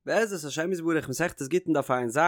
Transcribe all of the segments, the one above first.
בעזרת השם יתברך מסכת גיטין דף ע"ז,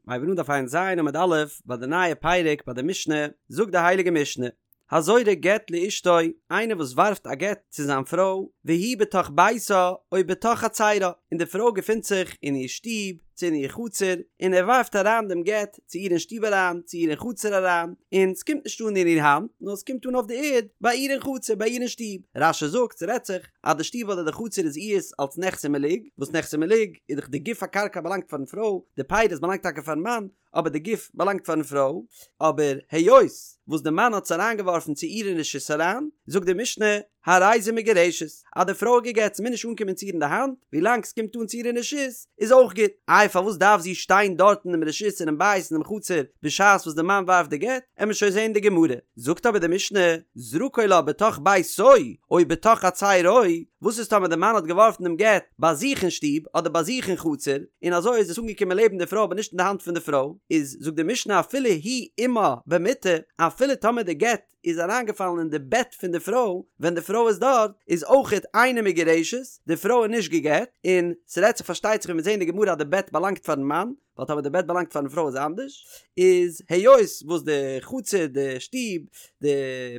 מ'הייבן אן דף ע"ז עמוד א', ביי די נייע פרק ביי די משנה, זאגט די הייליגע משנה, הזורק גט לאשתו, איינער וואס ווארפט א גט צו זיין פרוי, והיא בתוך ביתה או בתוך חצרה, און די פרוי געפינט זיך אין איר שטוב, צו אין איר חצר, און ער ווארפט אריין דעם גט צו איר אין שטוב אריין, צו איר אין חצר אריין, און ס'קומט נישט אן אין איר האנט, נאר ס'קומט אן אויף די ערד, ביי איר אין חצר, ביי איר אין שטוב. רש"י זאגט, ס'רעדט זיך, אז די שטוב אדער די חצר איז איהר'ס אלס נכסי מלוג, וואס נכסי מלוג איז דאך די גוף הקרקע באלאנגט פארן פרוי, די פירות באלאנגט טאקע פארן מאן, אבער די גוף באלאנגט פארן פרוי, אבער היות וואס די מאן האט עס אריינגעווארפן צו איר אין רשות אריין, זאגט די משנה, הרי זו מגורשת, אז די פרוי איז גע'גט, ס'מוז נישט אנקומען צו איר אין די האנט, ווילאנג ס'קומט אן צו איר אין רשות, איז אויך גוט. איי פארוואס דארף זי שטיין דארט אינעם רשות אינעם בית אינעם חצר בשעת וואס די מאן ווארפט די גט, עמיר שוין זעהן די גמרא. זאגט אבער די משנה, זרקו לה בתוך ביתו או בתוך חצרו, וואס איז טאמער די מאן האט געווארפן דעם גט ביי זיך אין שטוב אדער ביי זיך אין חצר, און אזוי איז עס אנגעקומען לעבן די פרוי אבער נישט אין די האנט פון די פרוי, איז זאגט די משנה אפילו הוא עמה במיטה, אפילו טאמער די גט איז אריינגעפאלן אין די בעט פון די פרוי ווען די פרוי איז דארט, איז אויכעט אינה מגורשת, די פרוי איז נישט גע'גט, און ס'רעדט זיך פארשטייט זיך ווי מיר זעהן אין די גמרא אז די בעט באלאנגט פארן מאן, ווייל טאמער די בעט באלאנגט פארן פרוי איז אנדערש, איז היות וואס די חצר, די שטוב, די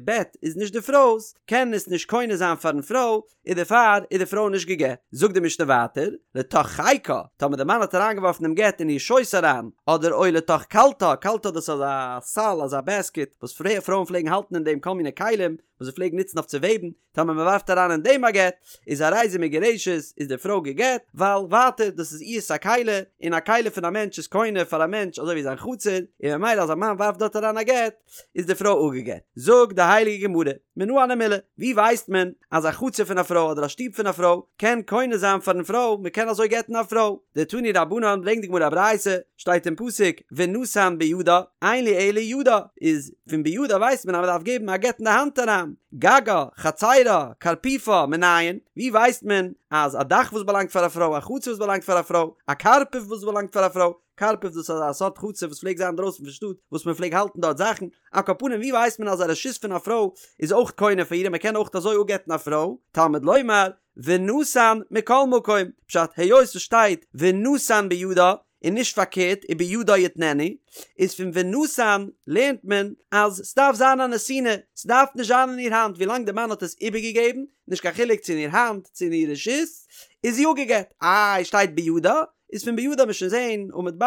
בעט איז נישט די פרוי'ס, קען עס נישט קונה זיין פארן פרוי, און דערפאר איז די פרוי נישט גע'גט. זאגט די משנה ווייטער, לתוך חיקה, טאמער די מאן האט אריינגעווארפן דעם גט אין איר שויס אריין, אדער או לתוך קלתה, קלתה דאס איז אזא סל, אזא בעסקיט, וואס פרויען פלעגן האלטן אין דעם כל מיני כלים, וואס זיי פלעגן נוצן אויף צו וועבן, טאמער מען ווארפט אריין אין דעם א גט, איז הרי זו מגורשת, איז די פרוי גע'גט, ווייל ווייטער דאס איז איהר'ס א כלי, און א כלי פון א מענטש איז קונה פאר א מענטש אזוי ווי זיין חצר, און ממילא אז א מאן ווארפט דארט אריין א גט, איז די פרוי אפגע'גט. זאגט די הייליגע גמרא, מנא הני מילי, ווי ווייסט מען אז א חצר פון א פרוי אדער א שטוב פון א פרוי קען קונה זיין פארן פרוי, מען קען אזוי גט'ן א פרוי? דתנו רבנן ברענגט די גמרא א ברייתא, שטייט אין פסוק ונתן בידה, אין לי אלא ידה, איז פון בידה ווייסט מען אז מען דארף געבן א גט אין די האנט אריין, גגה, חצרה, קרפיפה, מנין, ווי ווייסט מען אז א דאך וואס באלאנגט פאר א פרוי, א חצר וואס באלאנגט פאר א פרוי, א קרפף וואס באלאנגט פאר א פרוי, קרפף דאס איז אזא סארט חצר וואס פלעגט זיין אינדרויסן פון שטאט וואס מען פלעג האלטן דארט זאכן, על כל פנים ווי ווייסט מען אז א רשות פון א פרוי איז אויך קונה פאר איר און מען קען אויך אזוי אפגט'ן א פרוי, תלמוד לומר, ונתן מכל מקום, פשט היות עס שטייט ונתן בידה און נישט פארקערט ובידה יתננו, איז פון ונתן לערנט מען אז ס'דארף זיין א נתינה, ס'דארף נישט זיין אין איר האנט ווילאנג די מאן האט עס איבערגעגעבן, נישט קיין חילוק צו אין איר האנט צו אין איר רשות, איז זי אפגעגט, איי שטייט בידה, איז פון בידה מ'עט שוין זעהן עמוד ב'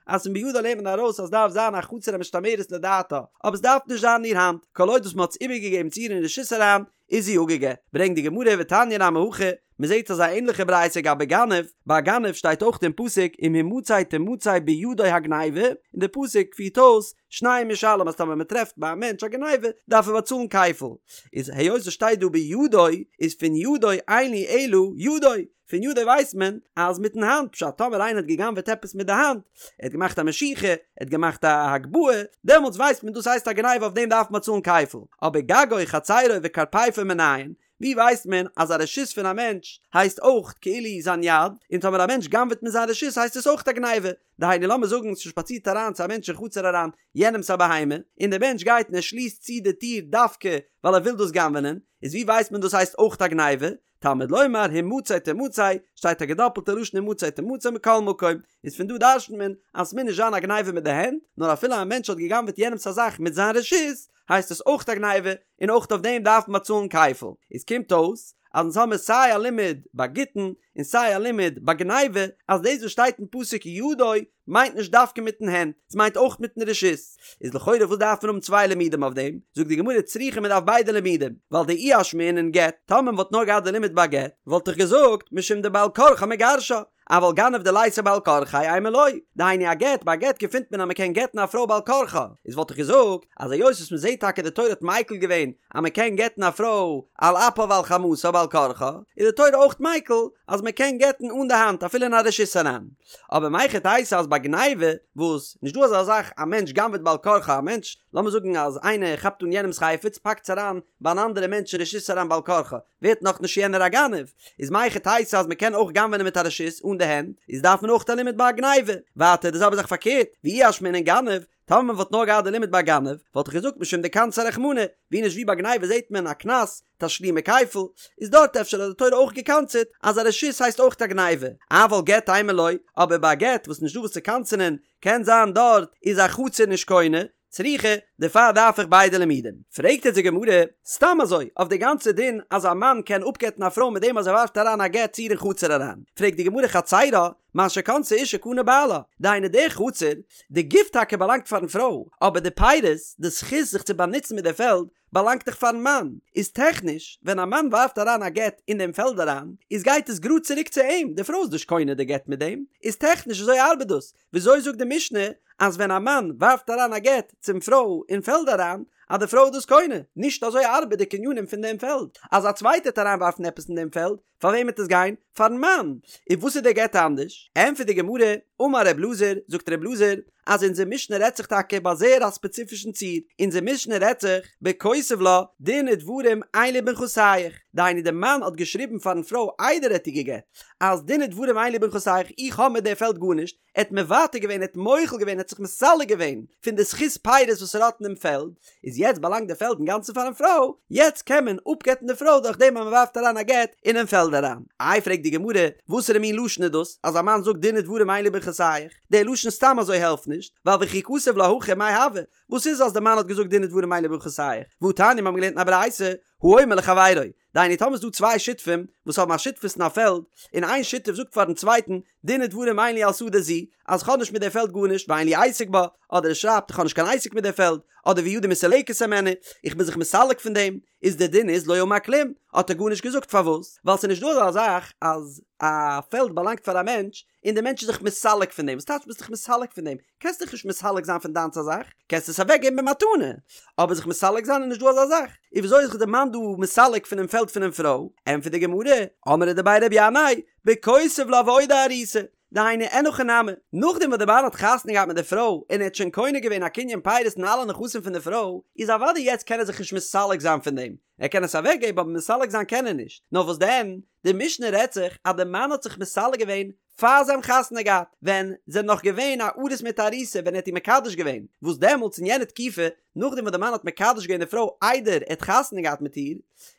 אז פון בידה לערנט מען ארויס אז ס'דארף זיין א חצר המשתמרת לדעתה, אבער ס'דארף נישט זיין אין איר האנט, כל עוד וואס מ'האט עס איבערגעגעבן צו איר אין רשות אריין, איז זי אפגעגט. ברענגט די גמרא ותניא נמי הכי, מען זעט אזא ענליכע ברייתא גבי גנב, ביי א גנב שטייט אויך אין פסוק אם המצא תמצא בידו הגניבה, און די פסוק פירט אויס שניים ישלם אז טאמער מען טרעפט ביי א מענטש א גניבה דארף ער באצאלן כפל, איז היות עס שטייט דא בידו איז פון ידו אין לי אלא ידו, פון ידו ווייסט מען אז מיטן האנט, פשט טאמער איינער האט גע'גנב'עט עפעס מיט די האנט, ער האט געמאכט א משיכה, ער האט געמאכט א הגבהה, דעמאלטס ווייסט מען דאס הייסט א גניבה אויף דעם דארף מען באצאלן כפל, אבער גגו חצרו וקרפיפו מנין, ווי ווייסט מען אז א רשות פון א מענטש הייסט אויך כאילו זיין יד, און טאמער א מענטש גנב'עט מיט זיין רשות הייסט עס אויך א גניבה, דהיינו לאמיר זאגן ס'שפאצירט אריין צו א מענטש אין חצר אריין יענעמ'ס א בהמה, און דער מענטש גייט און ער שליסט צו די טיר דווקא ווייל ער וויל דאס גנב'ענען, איז ווי ווייסט מען דאס הייסט אויך א גניבה? תלמוד לומר המצא תמצא, שטייט א געדאפלטע לשון המצא תמצא מכל מקום, איז פון דא דרש'נט מען אז ס'מוז נישט זיין א גניבה מיט די הענט, נאר אפילו א מענטש האט גע'גנב'עט יענעמ'ס א זאך מיט זיין רשות, הייסט עס אויך א גניבה, און אויך אויף דעם דארף מען באצאלן כפל. איז קומט אויס אז אונז האמיר סיי א לימוד ביי גיטין און סיי א לימוד ביי גניבה, אז דאס וואס שטייט אין פסוק ידו מיינט נישט דווקא מיטן הענט, ס'מיינט אויך מיטן רשות. איז לכאורה וואס דארף מען האבן צוויי לימודים אויף דעם? זאגט די גמרא צריכא מען דארף ביידע לימודים, ווייל דאי אשמעינן גט, טאמער מען וואלט נאר געהאט די לימוד ביי גט, וואלט איך געזאגט משום דבעל כרחה מגרשה, אבל גנב דליתא בעל כרחיה אימא לא, דהיינו א גט, ביי א גט געפינט מען אז מען קען גט'ן א פרוי בעל כרחה, איז וואלט איך געזאגט אז היות וואס מען זעט טאקע די תורה האט מיקל געווען אז מען קען גט'ן א פרוי על אפה ועל חמתה בעל כרחה, איז די תורה אויך מיקל אז מען קען גט'ן אן די האנט אפילו אין א רשות אריין. אבער מהיכי תיתי אז ביי גניבה, וואס, נישט דא אזא זאך א מענטש גנב'עט בעל כרחה א מענטש, לאמיר זאגן אז איינער כאפט אן יענעמ'ס חפץ פאקט עס אריין ביי אן אנדערע מענטש אין רשות אריין בעל כרחה, ווערט נאך נישט יענער א גנב, איז מהיכי תיתי אז מ'קען אויך גנב'ענען מיט א רשות אן די הענט, איז דארף מען אויך א לימוד ביי א גניבה. ווייטער די זעלבע זאך פארקערט, ואי אשמעינן גנב. טאמער מען וואלט נאר געהאט די לימוד ביי גנב, וואלט איך געזאגט משום דקנסיה רחמנא, ווי נישט ווי ביי גניבה זעט מען א קנס, תשלומי כפל, איז דארט אפשר האט די תורה אויך געקנס'עט אז א רשות הייסט אויך א גניבה, אבל גט אימא לא, אבער ביי א גט וואס נישט דא וואס צו קנס'ענען, קען זיין דארט איז א חצר נישט קונה, צריכא, דערפאר דארף איך ביידע לימודים. פרעגט יעצט די גמרא, סתם אזוי, אויף די גאנצע דין אז א מאן קען אפגט'ן א פרוי מיט דעם אז ער ווארפט אריין א גט צו איר אין חצר אריין, פרעגט די גמרא חצרה, מה שקנתה אשה קנה בעלה, דהיינו די חצר, די גוף טאקע באלאנגט פארן פרוי, אבער די פירות, די זכות זיך צו באנוצן מיט די פעלד, באלאנגט דאך פארן מאן, איז טעכניש ווען א מאן ווארפט אריין א גט אין דעם פעלד אריין, איז גייט עס גראד צוריק צו אים, די פרוי איז נישט קונה די גט מיט דעם, איז טעכניש אזוי ארבעט דאס, וויאזוי זאגט די משנה אז ווען א מאן ווארפט אריין א גט צום פרוי אין פעלד אריין, אז די פרוי איז דאס קונה, נישט אזוי ארבעט די קנינים פון דעם פעלד, אז א צווייטער וועט אריינווארפן עפעס אין דעם פעלד, פאר וועם וועט עס גיין? פארן מאן! און וואס איז דער גט אנדערש? ענטפערט די גמרא, אמר ר' אלעזר, זאגט ר' אלעזר, אז אונזער משנה רעדט זיך טאקע ביי זייער א ספעציפישן ציור, אונזער משנה רעדט זיך, בכותב לה, דין ודברים אין לי בנכסייך, דהיינו דער מאן האט געשריבן פארן פרוי איידער ער האט איר גע'גט, אז דין ודברים אין לי בנכסייך, איך האב מיט די פעלד גארנישט, ער האט מוותר געווען, ער האט מוחל געווען, ער האט זיך מסלק געווען פון די זכות פירות וואס ער האט אין דעם פעלד, איז יעצט באלאנגט די פעלד אינגאנצן פארן פרוי, יעצט קען מען אפגט'ן די פרוי דורך דעם אז מען ווארפט אריין א גט אינעם פעלד אריין. איי פרעגט די גמרא, וואסערע מין לשון איז דאס, אז א מאן זאגט דין ודברים אין לי בנכסייך, דער לשון סתם אזוי העלפט נישט, ווייל וכי כתב לה הכי מאי הוי, וואס איז אז די מאן האט געזאגט דין ודברים אין לי בנכסייך, והתניא מיר האבן געלערנט אין א ברייתא, האומר לחבירו, דהיינו טאמער איז דא צוויי שותפים וואס האבן א שותפות אין א פעלד, און איין שותף זאגט פארן צווייטן, דין ודברים אין לי על שדה זו, אז כ'האב נישט מיט די פעלד גארנישט, ואין לי עסק בה, אדער ער שרייבט איך האב נישט קיין עסק מיט די פעלד, אדער וידי מסולקת הימנה, איך בין זיך מסלק פון דעם, איז די דין איז לא אמר כלום, האט ער גארנישט געזאגט, פארוואס? ווייל ס'איז נישט דא אזא זאך אז א פעלד באלאנגט פאר א מענטש, און דער מענטש איז זיך מסלק פון דעם, וואס טייטש ביסט דיך מסלק פון דעם? קענסט דיך נישט מסלק זיין פון דיינס א זאך, קענסט עס אוועק געבן במתנה, אבער זיך מסלק זיין איז נישט דא אזא זאך, איז וויאזוי איז זיך דער מאן דא מסלק פונעם פעלד פונעם פרוי? ענטפערט די גמרא, אמרי דבי רבי ינאי, בכותב לה ועודה ארוסה, דהיינו אין הכי נמי, נאכדעם וואס דער מאן האט חתונה געהאט מיט די פרוי און ער האט שוין קונה געווען א קנין פירות אין אלע נכסים פון די פרוי, איז אוודאי יעצט קען ער זיך נישט מסלק זיין פון דעם, ער קען עס אוועק געבן אבער מסלק זיין קען ער נישט, נאר וואס דען, די משנה רעדט זיך אז די מאן האט זיך מסלק געווען פאר זיי האבן חתונה געהאט, ווען זיי זענען נאך געווען א ארוס מיט א ארוסה ווען ער האט איר מקדש געווען, וואס דעמאלטס אין יענע תקופה, נאכדעם וואס די מאן האט מקדש געווען די פרוי איידער ער האט חתונה געהאט מיט איר,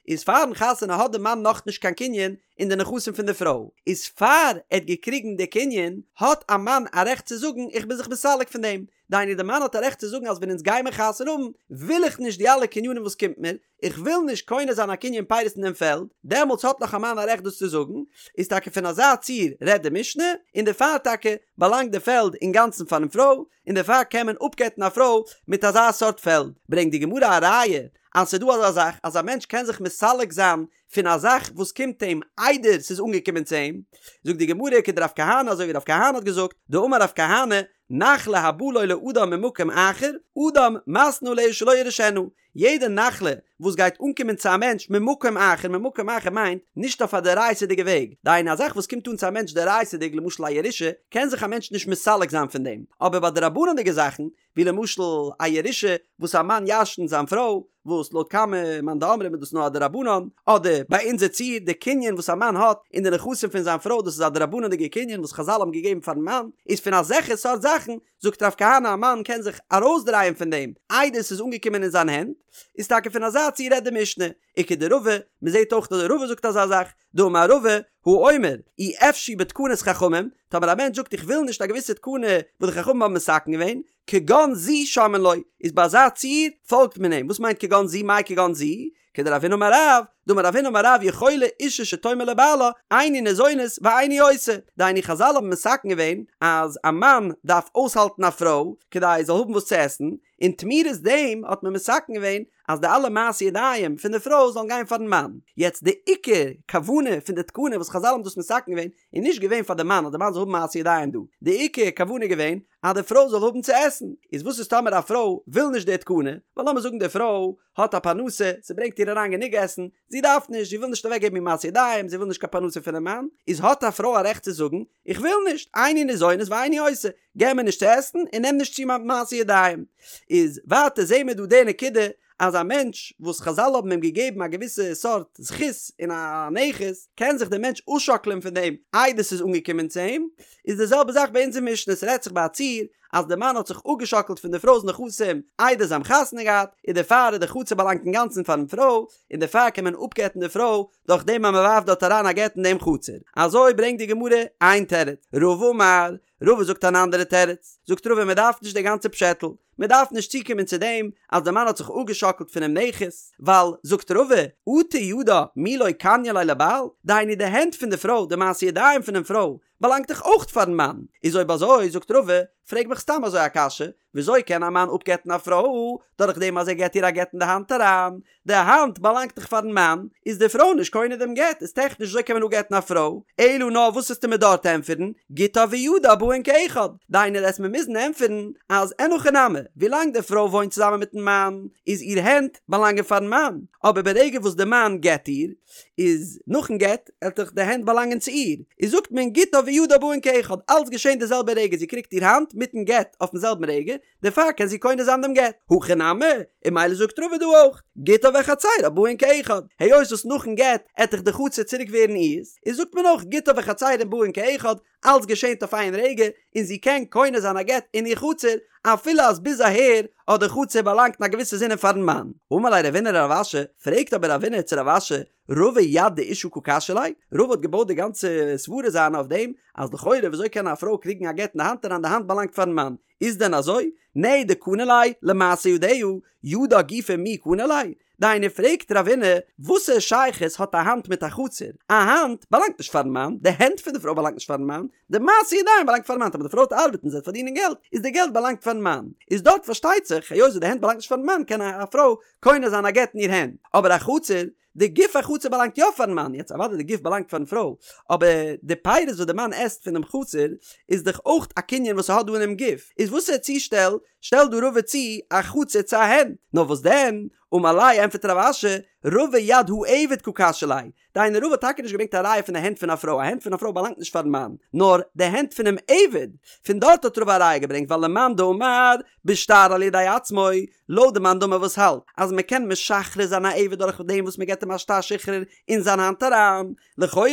איז פארן חתונה האט די מאן נאכנישט קיין קנין אין די נכסים פון די פרוי, איז פאר ער האט געקריגן די קנין האט א מאן א רעכט צו זאגן איך בין זיך מסלק פון דעם, דהיינו די מאן האט א רעכט צו זאגן אז ווען אונז גיימער חתונה האבן וויל איך נישט די אלע קנינים וואס קומט מיר, איך וויל נישט קונה זיין א קנין פירות אין דעם פעלד, דעמאלטס האט נאך א מאן א רעכט דאס צו זאגן, איז טאקע פון אזא ציור רעדט די משנה, און דערפאר טאקע באלאנגט די פעלד אינגאנצן פארן פרוי, און דערפאר קען מען אפגט'ן א פרוי מיט אזא סארט פעלד. ברענגט די גמרא א ראיה אז ס'איז דא אזא זאך אז א מענטש קען זיך מסלק זיין פון א זאך וואס קומט אים איידער ס'איז אנגעקומען צו אים, זאגט די גמרא כדרב כהנא אזוי ווי רב כהנא האט געזאגט, דאמר רב כהנא, נחלה הבאה לו לאדם ממקום אחר, אדם מתנה עליה שלא יירשנה, יעדע נחלה וואס גייט אנקומען צו א מענטש ממקום אחר, ממקום אחר מיינט, נישט אויף א דאורייתא'דיגע וועג, דהיינו א זאך וואס קומט אן צו א מענטש דאורייתא'דיג למשל א ירושה, קען זיך א מענטש נישט מסלק זיין פון דעם, אבער ביי דרבנן'דיגע זאכן, ווי למשל א ירושה וואס א מאן ירש'נט זיין פרוי, וואס לויט כמה מאן דאמרים איז דאס נאר א דרבנן, אדער ביי אונזער ציור די קנין וואס א מאן האט אין די נכסים פון זיין פרוי דאס איז א דרבנן'דיגע קנין וואס חזל האבן געגעבן פארן מאן, איז פון אזעלכע סארט זאכן זאגט רב כהנא א מאן קען זיך ארויסדרייען פון דעם איידער ס'איז אנגעקומען אין זיין הענט, איז טאקע פון אזא ציור רעדט די משנה, וכדרבא, מ'זעט אויך אז רבא זאגט אזא זאך, דאמר רבא, האומר, אי אפשי בתקנת חכמים, טאמער א מענטש זאגט איך וויל נישט א געוויסע תקנה וואס די חכמים האבן מתקן געווען, כגון זו שומעין לו, איז ביי אזא ציור פאלגט מען אים, וואס מיינט כגון זו מאי כגון זו? כדרב הונא אמר רב, דאמר רב הונא אמר רב יכולה אישה שתאמר לבעלה איני ניזונת ואיני עושה, דהיינו חזל האבן מתקן געווען אז א מאן דארף אויסהאלטן א פרוי כדי זי זאל האבן וואס צו עסן, און תמורת דעם האט מען מתקן געווען אז די אלע מעשי ידיים פון די פרוי זאלן גיין פארן מאן. יעצט די עיקר כוונה פון די תקנה וואס חזל האבן דאס מתקן געווען איז נישט געווען פאר די מאן אז די מאן זאל האבן מעשי ידיים דא, די עיקר כוונה איז געווען אז די פרוי זאל האבן צו עסן. איז וואס איז טאמער א פרוי וויל נישט די תקנה, ווייל לאמיר זאגן די פרוי האט א פרנסה, ס'ברענגט איר אריין גענוג עסן, זי דארף נישט, זי וויל נישט אוועקגעבן איר מעשי ידיים, זי וויל נישט קיין פרנסה פונעם מאן, איז האט א פרוי א רעכט צו זאגן, איך וויל נישט, איני ניזונת ואיני עושה, געב מיר נישט צו עסן און נעם נישט צו מיין מעשי ידיים. איז ווייטער זעהן מיר דא די נקודה אז א מענטש וואס חזל האבן אים געגעבן א געוויסע סארט זכות אין א נכס, קען זיך דער מענטש אפשאקלען פון דעם איידער ס'איז אנגעקומען צו אים, איז די זעלבע זאך ביי אונזער משנה, ס'רעדט זיך ביי א ציור. אז די מאן האט זיך אפגעשאקלט פון די פרוי'ס נכסים איידער זיי האבן חתונה געהאט, און דערפאר איז די חצר באלאנגט אינגאנצן פארן פרוי, און דערפאר קען מען אפגט'ן די פרוי דורך דעם אז מען ווארפט דארט אריין א גט אין דעם חצר. אזוי ברענגט די גמרא איין תירוץ. רבא אמר, רבא זאגט אן אנדערע תירוץ. זאגט רבא מען דארף נישט די גאנצע פשעטל, מען דארף נישט צוקומען צו דעם אז די מאן האט זיך אפגעשאקלט פונעם נכס, ווייל, זאגט רבא, אטו ידה מי לא קניא ליה לבעל, דהיינו די הענט פון די פרוי, די מעשי ידיים פונעם פרוי, באלאנגט דאך אויך פארן מאן, איז אויב אזוי, זאגט רבא, פרעג מיך סתם אזוי א קשיא, וויאזוי קען א מאן אפגט'ן א פרוי דורך דעם אז ער געט איר א גט אין די האנט אריין? די האנט באלאנגט דאך פארן מאן, איז די פרוי נישט קונה דעם גט, איז טעכניש וויאזוי קען מען אפגט'ן א פרוי? אלא נאר וואס וועסטו מיר דארט ענטפערן, גיטה וידה באין כאחד, דהיינו וועסט מיר מוזן ענטפערן אז אין הכי נמי, ווילאנג די פרוי וואוינט צוזאמען מיטן מאן, איז איר הענט באלאנגען פארן מאן, אבער ברגע וואס די מאן גט איר, איז נאכן גט, עט דאך די הענט באלאנגען צו איר, איז זאגט מען גיטה וידה באין כאחד, אלץ געשען די זעלבע רגע, זי קריגט איר האנט מיטן גט אויפן זעלבן רגע, דערפאר קען זי קונה זיין דעם גט. הכא נמי, און ממילא זאגט רבא דא אויך, גיטה וחצרה באין כאחד, היות וואס נאכן גט עט דאך די חצר צוריק ווערן אירס, איז זאגט מען אויך גיטה וחצרה באין כאחד, אלץ געשענט אויף איין רגע, און זי קען קונה זיין א גט אין איר חצר, אפילו אז ביז אהער האט די חצר באלאנגט אין א געוויסע זינען פארן מאן. אמר ליה רבינא לרב אשי, פרעגט אבער רבינא צו רב אשי, רבא יד דאשה קא קשיא ליה? רבא האט געבויט די גאנצע סברה זיינע אויף דעם, אז לכאורה וויאזוי קען א פרוי קריגן א גט אין די האנט אריין, די האנט באלאנגט פארן מאן, איז דען אזוי? נהי דקני ליה למעשה ידיה, ידה גופה מי קני ליה? דהיינו פרעגט רבינא, וואסע שייכות האט א האנט מיט א חצר? א האנט באלאנגט נישט פארן מאן, די הענט פון די פרוי באלאנגט נישט פארן מאן, די מעשי ידיים באלאנגט פארן מאן, אבער די פרוי וועט ארבעטן זי וועט פארדינען געלט, איז די געלט באלאנגט פארן מאן. איז דארט פארשטייט זיך, היות וואס די הענט באלאנגט נישט פארן מאן קען א פרוי קונה זיין א גט אין איר הענט, אבער א חצר, די גוף החצר באלאנגט יא פארן מאן, יעצט אוודאי די גוף באלאנגט פארן פרוי, אבער די פירות וואס די מאן עסט פונעם חצר איז דאך אויך א קנין וואס ער האט דא אינעם גוף, איז וואסער צושטעל שטעלט דא רבא צו א חצר צו א הענט? נאר וואס דען, אמר ליה ענטפערט רב אשי, רבא יד העבד קא קשיא ליה, דהיינו רבא האט טאקע נישט געברענגט א ראיה פון די הענט פון א פרוי, א הענט פון א פרוי באלאנגט נישט פארן מאן, נאר די הענט פונעם עבד, פון דארט האט רבא א ראיה געברענגט ווייל למאן דאמר בשטר על ידי עצמו, לויט די מאן דאמר וואס האלט אז מען קען משחרר זיין א עבד דורך דעם וואס מען געבט אים א שטר שחרור אין זיין האנט אריין, לכאורה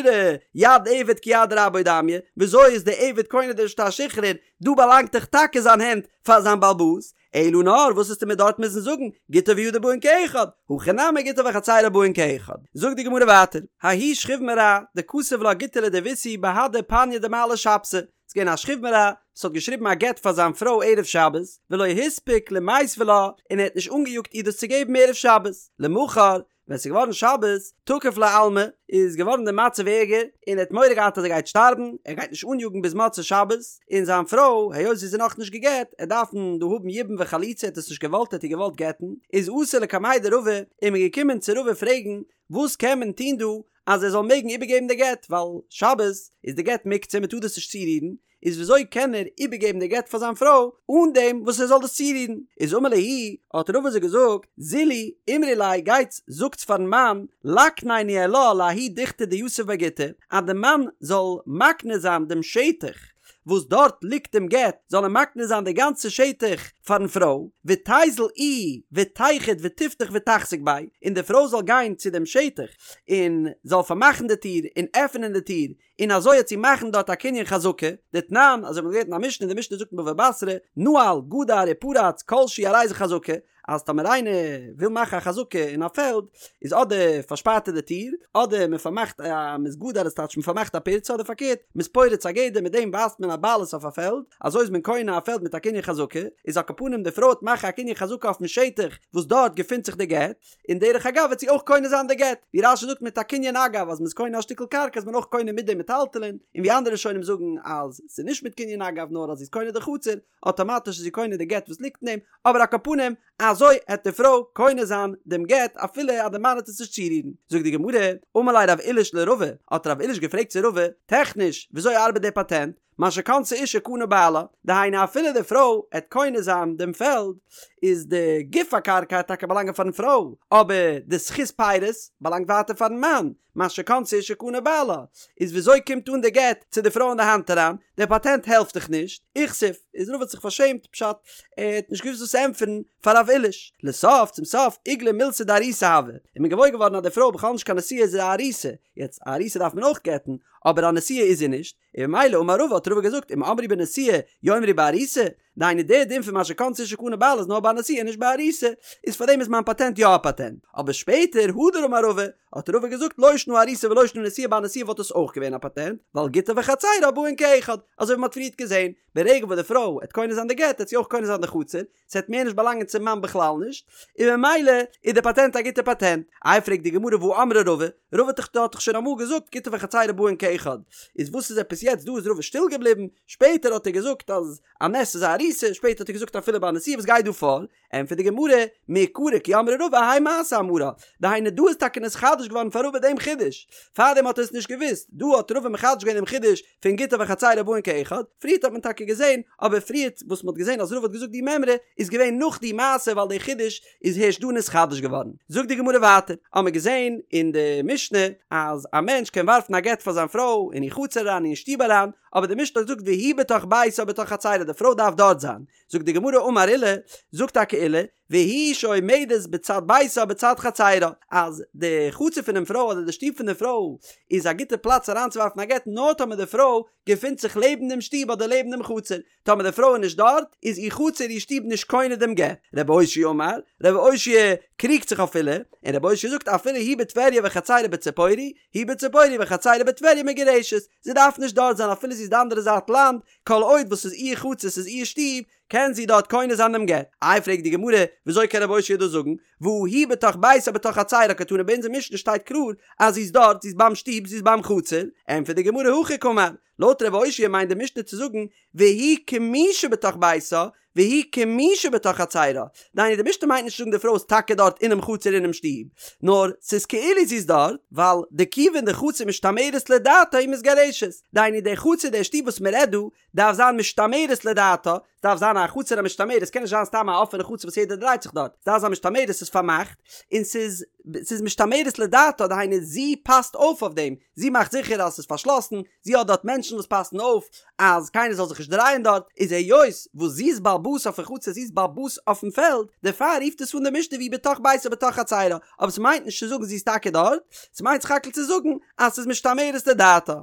יד עבד כיד רבו דמיא, וויאזוי איז די עבד קונה די שטר שחרור, דא באלאנגט דאך טאקע זיין הענט פאר זיין בעל הבית, אלא נאר וואס וועסטו מיר דארט מוזן זאגן, גיטה וידה באין כאחד, הכא נמי גיטה וחצרה באין כאחד. זאגט די גמרא ווייטער, ההוא שכיב מרע דכתב לה גיטא לדביתהו בהדי פניא דמעלי שבתא, ס'איז געווען א שכיב מרע וואס האט געשריבן א גט פאר זיין פרוי ערב שבת, ולא הספיק למיתבה לה, און ער האט נישט אנגעיאגט איר דאס צו געבן ערב שבת, למחר, ווען ס'איז געווארן שבת, תקיף ליה עלמא, איז געווארן די מצב ערגער, און ער האט מורא געהאט אז ער גייט שטארבן, ער גייט נישט אניאגן ביז מוצאי שבת, און זיין פרוי, היות זי איז נאכנישט גע'גט, עט דארפן דא האבן יבום וחליצה, ער האט עס נישט געוואלט, ער האט איר געוואלט גט'ן, איז אתו לקמיה דרבא, איז מען געקומען צו רבא פרעגן, וואס קען מען טון דא, אז ער זאל מעגן איבערגעבן די גט, ווייל שבת איז די גט מוקצה, מען טאר דאס נישט צורירן, איז וויאזוי קען ער איבערגעבן די גט פאר זיין פרוי אן דעם וואס ער זאל דאס צורירן? איז אמר להו, האט רבא זיי געזאגט, זילו אמרו ליה, גייטס זאגטס פארן מאן, ליקניה ניהלה לההוא דוכתא דיתיב ביה גיטא, אז די מאן זאל מקנה זיין דעם שטח וואס דארט ליגט דעם גט, זאל ער מקנה זיין די גאנצע שטח פארן פרוי, ותיזל איהי ותיחוד ותפתח ותחזיק ביה, און די פרוי זאל גיין צו דעם שטח און זאל פארמאכן די טיר און עפענען די טיר, און אזוי העט זי מאכן דארט א קנין חזקה, דתנן, אזוי ווי מ'האט געלערנט אין א משנה, די משנה זאגט אין בבא בתרא, נעל, גדר ופרץ, כל שהוא הרי זה חזקה, אז טאמער איינער וויל מאכן א חזקה אין א פעלד, איז אדער פארשפארט ער די טיר, אדער מען פארמאכט א מ'איז גדר איז טייטש מען פארמאכט א פירצה אדער פארקערט, מ'איז פורץ א גדר מיט דעם ווייזט מען א בעלות אויף א פעלד, אזוי איז מען קונה א פעלד מיט א קנין חזקה, איז על כל פנים די פרוי העט מאכן א קנין חזקה אויפן שטח וואס דארט געפינט זיך די גט, און דרך אגב וועט זי אויך קונה זיין די גט, ווי רש"י זאגט מיט א קנין אגב אז מ'איז קונה א שטיקל קרקע איז מען אויך קונה מיט די מטלטלין, און ווי אנדערע ראשונים זאגן אז ס'איז נישט מיט קנין אגב נאר אז זי איז קונה די חצר, אטאמאטיש איז זי קונה די גט וואס ליגט אין דעם, אבער על כל פנים אזוי העט די פרוי קונה זיין דעם גט אפילו אז די מאן העט עס נישט צורירן. זאגט די גמרא, אמר ליה רב עיליש לרבא, האט רב עיליש געפרעגט צו רבא, טעכניש וויאזוי ארבעט די פאטענט, מה שקנתה אשה קנה בעלה, דהיינו אפילו די פרוי העט קונה זיין דעם פעלד, איז די גוף הקרקע העט טאקע באלאנגען פארן פרוי, אבער די זכות פירות באלאנגט ווייטער פארן מאן, מה שקנתה אשה קנה בעלה, איז וויאזוי קומט אן די גט צו די פרוי אין די האנט אריין, דער פאטענט העלפט דאך נישט, איכסיף, איז רבא האט זיך פארשעמט, פשט, ער האט נישט געוואוסט וואס צו ענטפערן פאר רב עיליש, לסוף, צום סוף, איגלאי מילתא דארוסה הואי, איז מען געוואויר געווארן אז די פרוי איז בכלל נישט קיין נשואה זי איז א ארוסה, יעצט א ארוסה דארף מען אויך גט'ן, אבער א נשואה איז זי נישט, און ממילא אמר רבא האט רבא געזאגט אם אמרו בנשואה יאמרו בארוסה, דהיינו דער דין פון מה שקנתה אשה קנה בעלה איז נאר ביי א נשואה נישט ביי ארוסה, איז פארדעם איז מיין פאטענט יא א פאטענט. אבער שפעטער הדר אמר רבא, האט רבא געזאגט לא שנא ארוסה ולא שנא נשואה ביי א נשואה וואלט עס אויך געווען א פאטענט, ווייל גיטה וחצירה באין כאחד, אזוי ווי מ'האט פריערט געזען, ברגע וואס די פרוי עט קונה זיין די גט עט זי אויך קונה זיין די חצר, ס'עט מער נישט באלאנגען צום מאן בכלל נישט, און ממילא איז די פאטענט א גוטע פאטענט. איי פרעגט די גמרא והא אמרה רבא, רבא האט דאך שוין אמאל געזאגט גיטה וחצירה באין כאחד, איז וואס איז עפעס יעצט דא איז רבא שטיל געבליבן, שפעטער האט ער געזאגט אז א נס איז א ארוסה, שפעטער האט ער געזאגט אפילו ביי א נשואה וואס גייט דא פאר? ענטפערט די גמרא, מעיקרא כי אמרה רבא האי מעשה אמרה, דהיינו דא איז טאקע נתחדש געווארן פאר רבא דעם חידוש, פארדעם האט ער עס נישט געוואוסט, דא האט רבא מחדש געווען דעם חידוש פון גיטה וחצירה באין כאחד, פריערט האט מען טאקע געזען, אבער פריערט וואס מען האט געזען אז רבא האט געזאגט די מימרא איז געווען נאך די מעשה ווייל די חידוש איז הערשט דא נתחדש געווארן. זאגט די גמרא ווייטער, האמער געזען אין די משנה אז א מענטש קען ווארפן א גט פאר זיין פרוי אין איר חצר אריין אין שטוב אריין, אבער די משנה האט געזאגט והיא בתוך ביתה או בתוך חצירה די פרוי דארף דארט זיין, זאגט די גמרא אמר עולא, זאגט טאקע עולא, והיא שעומדת בצד ביתה או בצד חצירה, אז די חצר פונעם פרוי אדער די שטוב פון די פרוי איז א גוטע פלאץ אריינצוווארפן א גט נאר טאמער די פרוי געפינט זיך לעבן דעם שטוב אדער לעבן דעם חצר, טאמער די פרוי איז נישט דארט איז איר חצר איר שטוב נישט קונה דעם גט. רבי אושעיא אמר, רבי אושעיא קריגט זיך אויף עולא, און רבי אושעיא זאגט אפילו היא בטבריה וחצירה בציפורי, היא בציפורי וחצירה בטבריה מגורשת, זי דארף נישט דארט זיין אפילו זי איז די אנדערע זייט לאנד, כל עוד וואס ס'איז איר חצר ס'איז איר שטוב, קען זי דארט קונה זיין דעם גט. איי פרעגט די גמרא, וויאזוי קען רבי אושעיא דאס זאגן? והא היא בתוך ביתה בתוך חצירה קתני ביי אונזער משנה שטייט קלאר אז זי איז דארט, זי איז ביים שטוב, זי איז ביים חצר. ענטפערט די גמרא הכי קאמר, לויט רבי אושעיא מיינט די משנה צו זאגן והיא כמי שבתוך ביתה והיא כמי שבתוך חצירה, דהיינו די משנה מיינט נישט צו זאגן די פרוי איז טאקע דארט אינעם חצר אינעם שטוב, נאר ס'איז כאילו זי איז דארט, ווייל דכיון דחצר משתמרת לדעתה היא מתגרשת, דהיינו די חצר די שטוב וואס מ'רעדט דא, דארף זיין משתמרת לדעתה, ס'דארף זיין א חצר המשתמרת, ס'קען נישט זיין סתם א אפענע חצר וואס יעדער דרייט זיך דארט, ס'דארף זיין משתמרת ס'איז פארמאכט, און ס'איז ס'איז משתמרת לדעתה, דהיינו זי פאסט אויף אויף דעם, זי מאכט זיכער אז ס'איז פארשלאסן, זי האט דארט מענטשן וואס פאסן אויף אז קיינער זאל זיך נישט דרייען דארט, איז היות וואס זי איז בעל הבית אויפן חצר, זי איז בעל הבית אויפן פעלד, דערפאר רופט עס אן די משנה והיא בתוך ביתה בתוך חצירה, אבער ס'מיינט נישט צו זאגן זי איז טאקע דארט, ס'מיינט סך הכל צו זאגן אז ס'איז משתמרת לדעתה.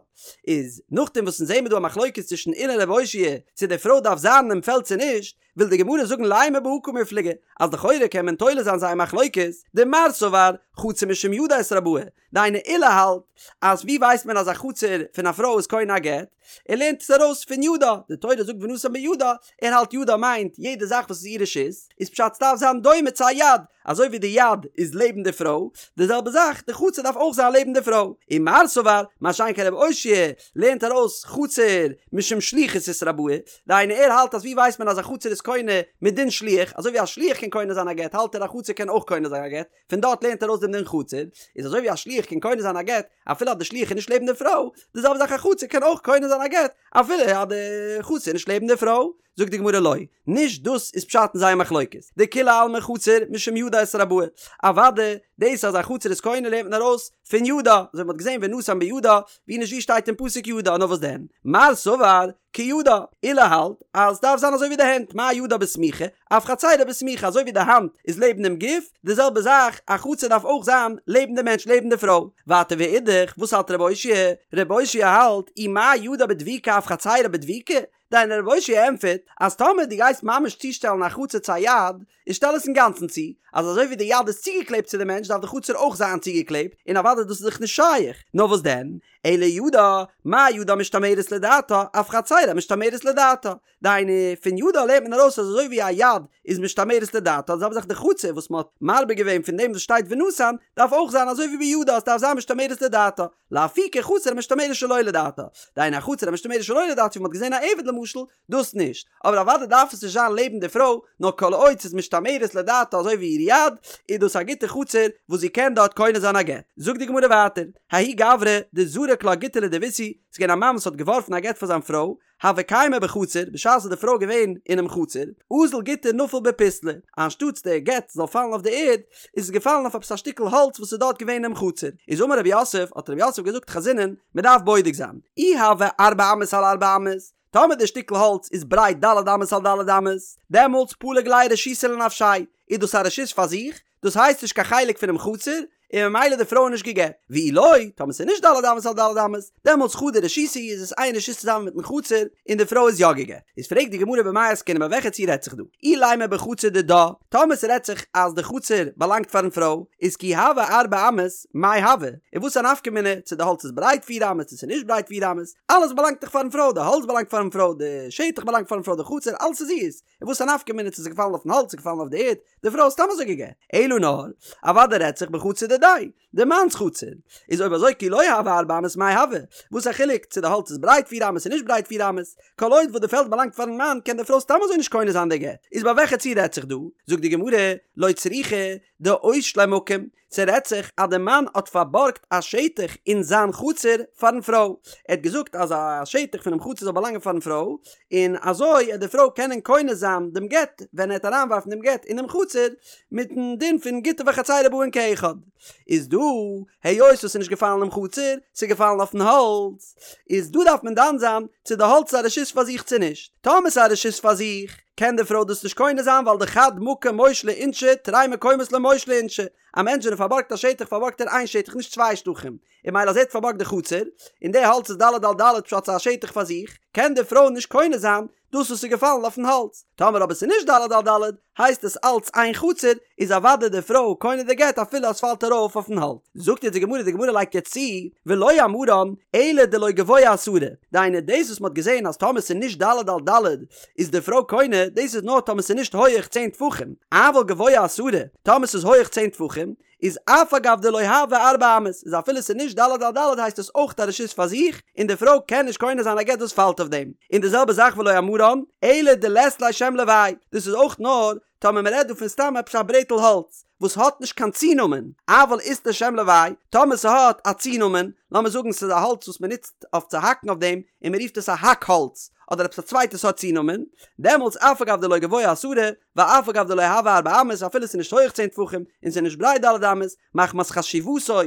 איז נאכדעם וואס אונז זעמער דא א מחלוקת צווישן עולא און ר' אושעיא צו די פרוי דארף זיין אינעם פעלד צו נישט, וויל די גמרא זאגן לימא בהא קמיפלגי, אז לכאורה קען מען תולה זיין זייער מחלוקת, דמר סבר חצר משום ידה אתרבאי, דהיינו עולא האלט אז ווי ווייסט מען אז א חצר פון א פרוי איז קונה א גט? ער לערנט עס ארויס פון ידה, די תורה זאגט ונתן בידה, ער האלט ידה מיינט יעדע זאך וואס איז איר רשות, איז פשט ס'דארף זיין דומה צו א יד, אזוי ווי די יד איז לעבן די פרוי, די זעלבע זאך די חצר דארף אויך זיין לעבן די פרוי, ומר סבר, מה שאין כן רבי אושעיא לערנט ארויס חצר משום שליחות אתרבאי, דהיינו ער האלט אז ווי ווייסט מען אז א חצר איז קונה מדין שליח, אזוי ווי א שליח קען קונה זיין א גט האלט ער א חצר קען אויך קונה זיין א גט, פון דארט לערנט ער ארויס דעם דין חצר, איז אזוי ווי א שליח קען קונה זיין א גט אפילו אז די שליח איז נישט לעבן די פרוי, די זעלבע זאך א חצר קען אויך קונה זיין א גט אפילו אז די חצר איז נישט לעבן די פרוי. זאגט די גמרא לא, נישט דאס איזפשט אין זייער מחלוקת, דכולי עלמא חצר משום ידה אתרבאי, אוואדע דאס אז א חצר איז קונה לערנט מען ארויס פון ידה, אזוי ווי מ'האט געזען ונתן בידה, ווי נישט ווי שטייט אין פסוק ידה, נאר וואס דען, מר סבר כידה, עולא האלט אז ס'דארף זיין אזוי ווי די הענט, מה ידה בסמיכה, אף חצירה בסמיכה, אזוי ווי די האנט איז לעבן דעם גוף, די זעלבע זאך א חצר דארף אויך זיין לעבן די מענטש, לעבן די פרוי. ווייטער ואידך, וואס האלט רב אושעיא? רב אושעיא האלט, אי מה ידה בדבוקה אף חצירה בדבוקה, דהיינו רב אושעיא ענטפערט אז טאמער דו גייסט ממש צושטעלן א חצר צו א יד, איז שטעל עס אינגאנצן צו, אז אזוי ווי די יד איז צוגעקלעבט צו די מענטש דארף די חצר אויך זיין צוגעקלעבט, און אוודאי דאס איז דאך נישט שייך, נאר וואס דען, אלא ידה, מה ידה משתמרת לדעתה, אף חצירה משתמרת לדעתה. דהיינו, פון ידה לערנט מען ארויס אז אזוי ווי א יד איז משתמרת לדעתה, די זעלבע זאך די חצר וואס מען האט מרבה געווען פון דעם וואס שטייט ונתן, דארף אויך זיין אזוי ווי בידה, עס דארף זיין משתמרת לדעתה. לאפוקי חצר המשתמרת שלא לדעתה. דהיינו א חצר המשתמרת שלא לדעתה ווי מען האט געזען א עבד למשל, דאס נישט. אבער אוודאי דארף עס נישט זיין לעבן די פרוי, נאר כל עוד ס'איז משתמרת לדעתה אזוי ווי איר יד, איז דאס א גוטע חצר וואס זי קען דארט קונה זיין א גט. זאגט די גמרא ווייטער, ההוא גברא דזרק לה גיטא לדביתהו, ס'איז געווען א מאן וואס האט געווארפן א גט פאר זיין פרוי, הוה קיימא בחצר, בשעת איז די פרוי געווען אינעם חצר, אזל גיטא נפל בפיסלא, אנשטאטס די גט זאל פאלן אויף די ערד, איז עס געפאלן אויף עפעס א שטיקל האלץ וואס איז דארט געווען אינעם חצר. איז אמר רב יוסף, האט רב יוסף געזאגט חזינן, מען דארף בודק זיין, אי הוה ארבע אמות על ארבע אמות, טאמער די שטיקל האלץ איז ברייט ד' אמות על ד' אמות, דעמאלטס פלג ליה רשותא לנפשיה, איז דאס א רשות פאר זיך, דאס הייסט נישט קיין חלק פונעם חצר, און ממילא די פרוי איז נישט גע'גט. ואי לא, טאמער ס'איז נישט ד' אמות על ד' אמות, דעמאלטס חדא רשותא היא איז עס איין רשות צוזאמען מיטן חצר, און די פרוי איז יא גע'גט. איז פרעגט די גמרא במאי עסקינן ביי וועלכע ציור רעדט זיך דא? אילימא בחצר דידה, טאמער ס'רעדט זיך אז די חצר באלאנגט פארן פרוי, איז כי הוה ארבע אמות, מאי הוה? און וואס א נפקא מינה צו די האלץ איז ברייט פיר אמות צו ס'איז נישט ברייט פיר אמות, אלעס באלאנגט דאך פארן פרוי, די האלץ באלאנגט פארן פרוי, די שטח באלאנגט פארן פרוי, די חצר, אלעס איז אירס, און וואס א נפקא מינה צו ס'איז געפאלן אויפן האלץ צו געפאלן אויף די ערד, די פרוי איז סתם אזוי גע'גט. אלא נאר, אוודאי רעדט זיך בחצר דידיה, די מאנ'ס חצר. איז אויב אזוי כי לא הוה ארבע אמות מאי הוה? וואס א חילוק צו די האלץ איז ברייט פיר אמות און נישט ברייט פיר אמות? כל עוד וואס די פעלד באלאנגט פארן מאן קען די פרוי סתם אזוי נישט קונה זיין די גט. איז ביי וועלכע ציור רעדט זיך דא? זאגט די גמרא, לא צריכא דאושליה מקום, ס'רעדט זיך אז די מאן האט פארבארגט א שטח אין זיין חצר פארן פרוי, ער האט געזאגט אז א שטח פונעם חצר זאל באלאנגען פארן פרוי, און אזוי וועט די פרוי קענען קונה זיין דעם גט ווען ער וועט אריינווארפן דעם גט אינעם חצר, מיטן דין פון גיטה וחצירה באין כאחד. איז דא, היות עס איז נישט געפאלן אינעם חצר, ס'איז געפאלן אויפן האלץ, איז דא דארף מען דן זיין צו די האלץ איז א רשות פאר זיך צו נישט. טאמער ס'איז א רשות פאר זיך, קען די פרוי דאס נישט קונה זיין ווייל דחד מקום מושלי אינשי תרי מקומות לא מושלי אינשי, א מענטש ווען ער פארבארגט א שטח פארבארגט ער איין שטח נישט צוויי שטחים, און ממילא אז ער האט פארבארגט די חצר, און די האלץ איז ד' על ד' פשט ס'איז א שטח פאר זיך, קען די פרוי נישט קונה זיין דאס וואס איז געפאלן אויפן האלץ. טאמער אבער ס'איז נישט ד' על ד' הייסט עס אלץ איין חצר, איז אוודאי די פרוי קונה די גט אפילו אז ס'פאלט ארויף אויפן האלץ. זאגט יעצט די גמרא, די גמרא לייגט יעצט צו, ולא אמרן אלא דלא גבוה עשרה, דהיינו דאס וואס מ'האט געזען אז טאמער ס'איז נישט ד' על ד' איז די פרוי קונה, דאס איז נאר טאמער ס'איז נישט הויעך צען טפחים, אבל גבוה עשרה, טאמער ס'איז הויעך צען טפחים, איז אף על גב דלא הוה ארבע אמות, איז אפילו ס'איז נישט ד' על ד' הייסט עס אויך א רשות פאר זיך, און די פרוי קען נישט קונה זיין א גט וואס פאלט אויף דעם. און די זעלבע זאך ולא אמרן, אלא דלית ליה שם לוואי, דאס איז אויך נאר טאמער מ'רעדט דא פון סתם עפעס א ברעטל האלץ, וואס האט נישט קיין צונאמען, אבל אית ליה שם לוואי, טאמער ס'האט א צונאמען, לאמיר זאגן ס'איז א האלץ וואס מ'נוצט אויף צו האקן אויף דעם, און מ'רופט עס א האק האלץ, אדער עפעס א צווייטע סארט צונאמען, דעמאלטס אף על גב דלא גבוה עשרה, ואף על גב דלא הוה ארבע אמות, אפילו ס'איז נישט הויעך צען טפחים, און ס'איז נישט ברייט ד' אמות, מחמת חשיבותו,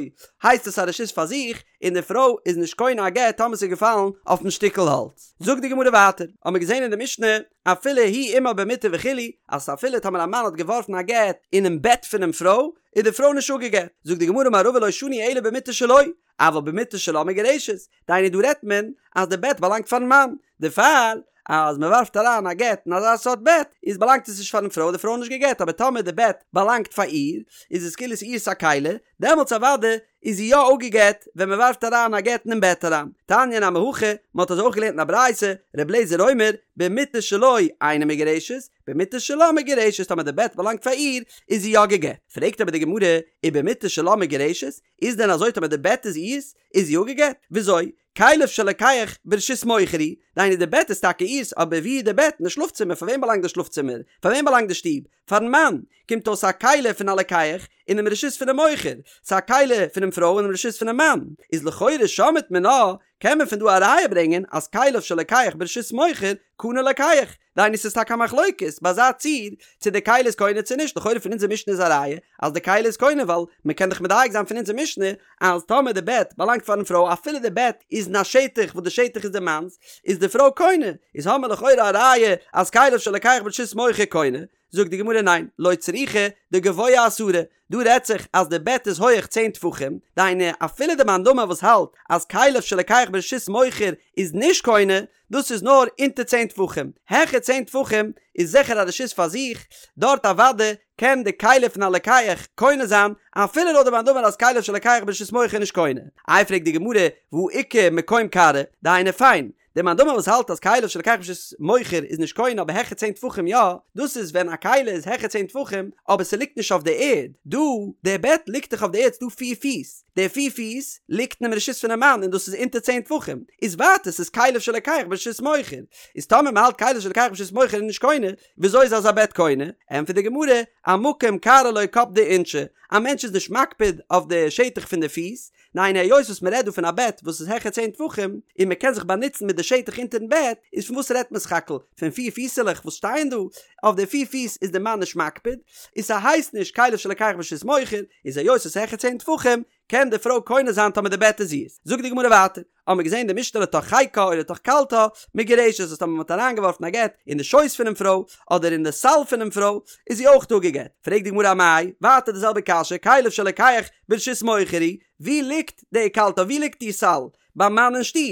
הייסט עס א רשות פאר זיך, און די פרוי איז נישט קונה א גט טאמער ס'איז געפאלן אויפן שטיקל האלץ. זאגט די גמרא ווייטער, האמיר געזען אין די משנה, אפילו הוא עמה במיטה וכו', אז אפילו טאמער א מאן האט געווארפן א גט אינעם בעט פונעם פרוי, איז די פרוי נישט אפגעגט. זאגט די גמרא אמר רבא לא שנו אלא במיטה שלו, אבל במיטה שלה מגורשת, דהיינו דא רעדט מען אז די בעט באלאנגט פארן מאן, דערפאר אז מען ווארפט אריין א גט אין אזא סארט בעט איז באלאנגט עס נישט פארן פרוי, די פרוי איז נישט גע'גט, אבער טאמער די בעט באלאנגט פאר איר איז עס כאילו ס'איז איר'ס א כלי, דעמאלטס אוודאי איז זי יא אפגעגט ווען מען ווארפט אריין א גט אינעם בעט אריין. תניא נמי הכי, מען האט אזוי אויך געלערנט אין א ברייתא, ר' אליעזר אומר, במיטה שלו אינה מגורשת, במיטה שלה מגורשת, טאמער די בעט באלאנגט פאר איר איז זי יא גע'גט. פרעגט אבער די גמרא, ובמיטה שלה מגורשת, איז דען אזוי טאמער די בעט איז איר'ס איז זי אפגעגט? וויאזוי? כליו של לוקח ברשות מוכר הוא, דהיינו די בעט איז טאקע איר'ס אבער ווי איז די בעט? אין די שלאף צימער, פאר וועם באלאנגט די שלאף צימער? פאר וועם באלאנגט די שטוב? פארן מאן! קומט אויס א כלי פון א לוקח אינעם רשות פונעם מוכר, ס'איז א כלי פונעם פרוי אינעם רשות פונעם מאן, איז לכאורה שמעת מינה קען מען פון דא א ראיה ברענגען אז כליו של לוקח ברשות מוכר קנה לוקח, דהיינו ס'איז טאקע א מחלוקת ביי אזא ציור צו די כלי איז קונה צו נישט, לכאורה פון אונזער משנה איז א ראיה אז די כלי איז קונה ווייל מ'קען דאך מדייק זיין פון אונזער משנה אז טאמער די בעט באלאנגט פארן פרוי אפילו די בעט איז אין א שטח וואס די שטח איז די מאנ'ס איז די פרוי קונה, איז האמער לכאורה א ראיה אז כליו של לוקח ברשות מוכר קונה, זאגט די גמרא ניין, לא צריכא דגבוה עשרה, דא רעדט זיך אז די בעט איז הויעך צען טפחים, דהיינו אפילו די מאן דאמר וואס האלט אז כליו של לוקח ברשות מוכר איז נישט קונה, דאס איז נאר אונטער צען טפחים, העכער צען טפחים איז זיכער א רשות פאר זיך, דארט אוודאי קען די כלי פון א לוקח קונה זיין, אפילו לויט די מאן דאמר אז כליו של לוקח ברשות מוכר איז נישט קונה. איי פרעגט די גמרא, והא איכא מקום כרעא, דהיינו פיין, דער מאן דאמר וואס האלט אז כליו של לוקח ברשות מוכר איז נישט קונה אבער העכער צען טפחים יא, דאס איז ווען א כלי איז העכער צען טפחים אבער ס'ליגט נישט אויף די ערד, דא דער בעט ליגט דאך אויף די ערד ס'דא פיר פיס, די פיר פיס ליגט אינעם רשות פונעם מאן און דאס איז אונטער צען טפחים, איז ווייטער ס'איז כליו של לוקח ברשות מוכר, איז טאמער מ'האלט כליו של לוקח ברשות מוכר איז נישט קונה, וויאזוי איז אזא בעט קונה? ענטפערט די גמרא, אמקום כרעא לא קפדי אינשי, א מענטש איז נישט מקפיד אויף די שטח פון די פיס, ניין היות וואס מ'רעדט דא פון א בעט וואס איז העכער צען טפחים און מ'קען זיך באנוצן מיט די שטח אונטערן בעט, איז פון וואס רעדט מען סך הכל? פון פיר פיסעלעך וואס שטייען דא? אויף די פיר פיס איז די מאן נישט מקפיד, און ס'הייסט נישט כליו של לוקח ברשות מוכר, איז היות ס'איז העכער צען טפחים. קען די פרוי קונה זיין טאמער די בעט איז אירס. זאגט די גמרא ווייטער, האבן מיר געזען די משנה לתוך חיקה או לתוך קלתה, מגורשת אז טאמער מ'האט אריינגעווארפן א גט אין די שויס פונעם פרוי, אדער אין די סל פונעם פרוי, איז זי אויך אפגעגט. פרעגט די גמרא אמאי, ווייטער די זעלבע קשיא, כליו של לוקח ברשות מוכר הוא, ווי ליגט די קלתה, ווי ליגט די סל? ביים מאן אין שטוב,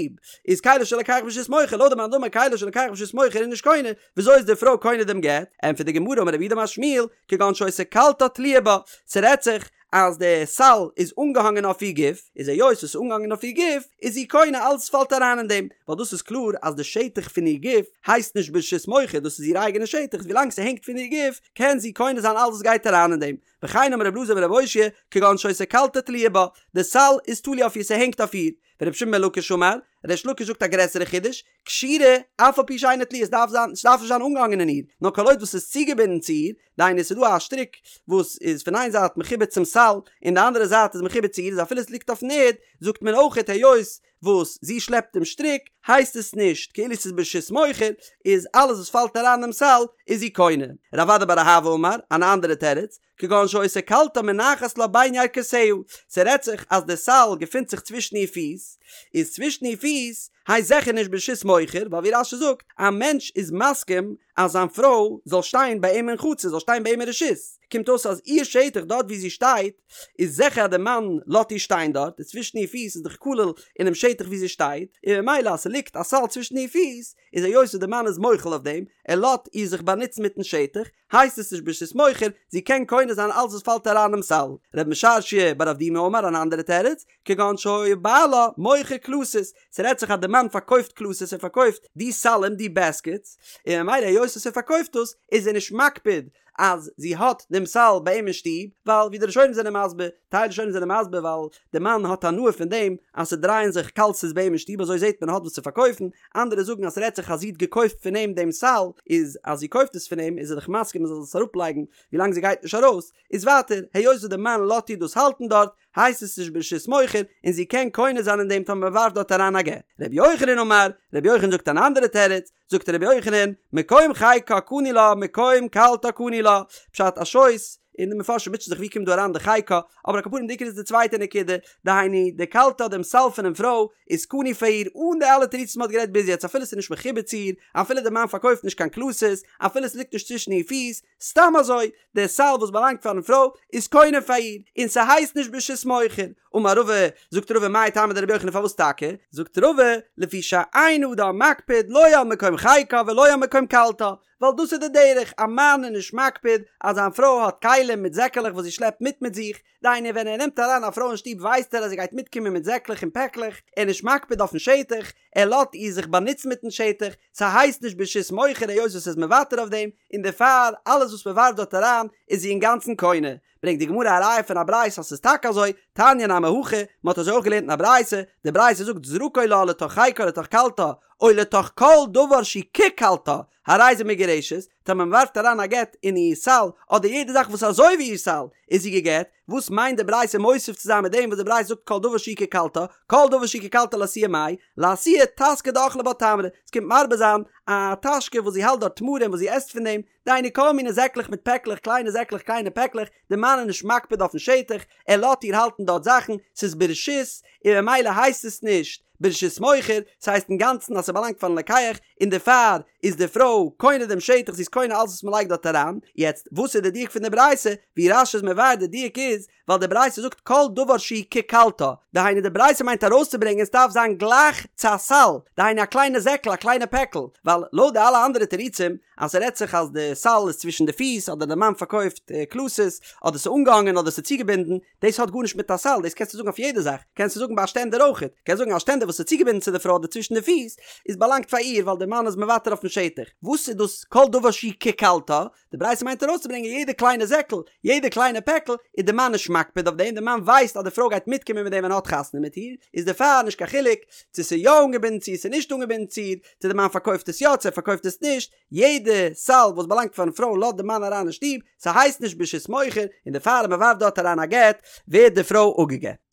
איז כליו של לוקח ברשות מוכר, לויט די מאן דאמר כליו של לוקח ברשות מוכר איז נישט קונה, וויאזוי איז די פרוי קונה דעם גט? ענטפערט די גמרא אמר רב יהודה אמר שמואל, כגון שהיתה קלתה תלויה בה, ס'רעדט זיך אז די סל איז אנגעהאנגען אויף איר גוף, איז היות עס איז אנגעהאנגען אויף איר גוף, איז זי קונה אלעס פאלט אריין אין דעם, ווייל דאס איז קלאר אז די שטח פון איר גוף הייסט נישט ברשות מוכר, דאס איז איר אייגענע שטח, ווילאנג ס'הענגט פון איר גוף קען זי קונה זיין אלעס וואס גייט אריין אין דעם, וכן אמר רבי אלעזר ברבי אושעיא, כגון שהיתה קלתה תלויה בה, די סל איז תלוי אויף איר ס'הענגט אויף איר, ורבי שמעון בן לקיש אמר, ריש לקיש זאגט א גרעסערע חידוש, קשורה, אף על פי שאינה תלויה, עס דארף זיין, עס דארף נישט זיין אנגעהאנגען אין איר, נאר כל עוד וואס איז צוגעבינדן צו איר, דהיינו עס איז דא א שטריק וואס איז פון איין זייט מחובר צום סל, און די אנדערע זייט איז מחובר צו איר, איז אפילו עס ליגט אויפן ערד, זאגט מען אויכעט היות וואס זי שלעפט דעם שטריק, הייסט עס נישט כאילו עס איז ברשות מוכר, איז אלעס וואס פאלט אריין אינעם סל איז זי קונה. רב אדא בר אהבה אמר, אן אנדערע תירוץ, כגון שהיתה קלתה מונחת לה בין ירכותיה, ס'רעדט זיך אז די סל געפינט זיך צווישן איר פיס, איז צווישן איר פיס הייסט זיכער נישט ברשות מוכר, ווייל ווי רש"י זאגט, א מענטש איז מסכים אז זיין פרוי זאל שטיין ביי אים אין חצר, זאל שטיין ביי אים אין רשות, קומט אויס אז איר שטח דארט ווי זי שטייט, איז זיכער אז די מאן לאזט איר שטיין דארט, און צווישן איר פיס איז דאך כולל אינעם שטח ווי זי שטייט, און ממילא אז ס'ליגט א סל צווישן איר פיס, איז היות וואס די מאן איז מוחל אויף דעם, ער לאזט איר זיך באנוצן מיטן שטח, הייסט עס נישט ברשות מוכר, זי קען קונה זיין אלס וואס פאלט אריין אינעם סל. רב משרשיא בר אבדימי אמר אן אנדערע תירוץ, כגון שהיה בעלה מוכר קלתות, ס'רעדט זיך אז די מאן פארקויפט קלתות ער פארקויפט די סלים די בעסקעטס, און ממילא היות וואס ער פארקויפט דאס איז ער נישט מקפיד אז זי האט דעם סל ביי אים אין שטוב, ווייל ווי די ראשונים זענען מסביר, טייל ראשונים זענען מסביר ווייל די מאן האט הנאה פון דעם אז ס'דרייען זיך קלתות ביי אים אין שטוב אזוי זעט מען ער האט וואס צו פארקויפן, אנדערע זאגן אז ס'רעדט זיך אז זי האט געקויפט פון אים דעם סל, איז אז זי קויפט עס פון אים איז ער דאך מסכים זי זאל עס אראפלייגן ווילאנג זי גייט נישט ארויס, איז ווייטער היות וואס די מאן לאזט איר דאס האלטן דארט הייסט עס נישט ברשות מוכר און זי קען קונה זיין אין דעם טאמער מ'ווארפט דארט אריין א גט. ר' יוחנן אמר, ר' יוחנן זאגט אן אנדערע תירוץ, זאגט ר' יוחנן, מקום חיקה קנוי לה מקום קלתה קנוי לה, פשט א שויס, און די מפרשים מוטשען זיך ווי קומט דא אריין די חיקה, אבער על כל פנים די עיקר איז די צווייטע נקודה, דהיינו די קלתה דעם סל פונעם פרוי איז קנוי פאר איר אן די אלע תירוצים וואס מ'האט גערעדט ביז יעצט אפילו ס'איז נישט מחובר צו איר, אפילו די מאן פארקויפט נישט קיין קלתות, אפילו ס'ליגט נישט צווישן איר פיס, סתם אזוי, דער סל וואס באלאנגט פארן פרוי איז קונה פאר איר, און ס'הייסט נישט ברשות מוכר. אמר רבא, זאגט רבא מאי טעמא דרבי יוחנן פארוואס טאקע? זאגט רבא, לפי שאין אדם מקפיד לא על מקום חיקה ולא על מקום קלתה, ווייל דאס איז די דרך, א מאן איז נישט מקפיד אז זיין פרוי האט כלים מיט זעקעלעך וואס זי שלעפט מיט מיט זיך, דהיינו ווען ער נעמט אריין א פרוי אין שטוב ווייסט ער אז זי גייט מיטקומען מיט זעקלעך און פעקלעך, ער איז נישט מקפיד אויפן שטח, ער לאזט איר זיך באנוצן מיטן שטח, ס'הייסט נישט ברשות מוכר היות וואס ער איז מוותר אויף דעם, און דערפאר אלעס וואס מ'ווארפט דארט אריין איז זי אינגאנצן קונה. ברענגט די גמרא א ראיה פון א ברייתא אז ס'איז טאקע אזוי, תניא נמי הכי, מ'האט אזוי אויך געלערנט אין א ברייתא, די ברייתא זאגט זרקו לה לתוך חיקה לתוך קלתה, או לתוך כל דבר שהוא כקלתה, הרי זו מגורשת, טאמער מ'ווארפט אריין א גט אין איר סל, אדער יעדע זאך וואס איז אזוי ווי איר סל, איז זי גע'גט, וואס מיינט די ברייתא מוסיף צו זיין מיט דעם וואס די ברייתא זאגט כל דבר שהוא כקלתה, כל דבר שהוא כקלתה לאתויי מאי, לאתויי טסקא דאכלה בה תמרי, עס קומט מרבה זיין א טאשקע וואס זי האלט דארט תמרים וואס זי עסט פון דעם, דהיינו כל מיני זעקלעך מיט פעקלעך, קליינע זעקלעך קליינע פעקלעך, די מאן איז נישט מקפיד אויפן שטח, ער לאזט איר האלטן דארט זאכן, ס'איז ברשות, און ממילא הייסט עס נישט ברשות מוכר, ס'הייסט אינגאנצן אז ס'באלאנגט פארן לוקח, און דערפאר איז די פרוי קונה דעם שטח, זי איז קונה אלעס וואס מ'לייגט דארט אריין. יעצט, וואס איז די דיוק פון די ברייתא? ווי רש"י איז מבאר די דיוק איז, ווייל די ברייתא זאגט כל דבר שהוא כקלתה, דהיינו די ברייתא מיינט ארויסצוברענגען ס'דארף זיין גלייך צו א סל, דהיינו א קליינע זעקל א קליינע פעקל, ווייל לויט די אלע אנדערע תירוצים אז ס'רעדט זיך אז די סל איז צווישן די פיס אדער די מאן פארקויפט קלתות אדער ס'איז אנגעהאנגען אדער ס'איז צוגעבינדן, דאס האט גארנישט מיט א סל, דאס קענסטו זאגן אויף יעדע זאך, קענסטו זאגן ביי א שטענדער אויכעט, קענסט זאגן א שטענדער וואס איז צוגעבינדן צו די פרוי אדער צווישן די פיס, איז באלאנגט פאר איר ווייל די מאן איז מוותר אויפן שטח, וואס איז דאס כל דבר שהוא כקלתה? די ברייתא מיינט ארויסצוברענגען יעדע קליינע זעקל, יעדע קליינע פעקל, איז די מאן נישט מקפיד אויף דעם, די מאן ווייסט אז די פרוי גייט מיטקומען מיט דעם ווען ער האט חתונה מיט איר, איז דערפאר נישט קיין חילוק צו ס'איז יא אנגעבינדן צו ס'איז נישט אנגעבינדן צו איר, צו די מאן פארקויפט עס יא צו ער פארקויפט עס נישט, יעדע סל וואס באלאנגט פארן פרוי לאזט די מאן אריין אין שטוב, ס'הייסט נישט ברשות מוכר, און דערפאר אז מ'ווארפט דארט אריין א גט, ווערט די פרוי אפגע'גט.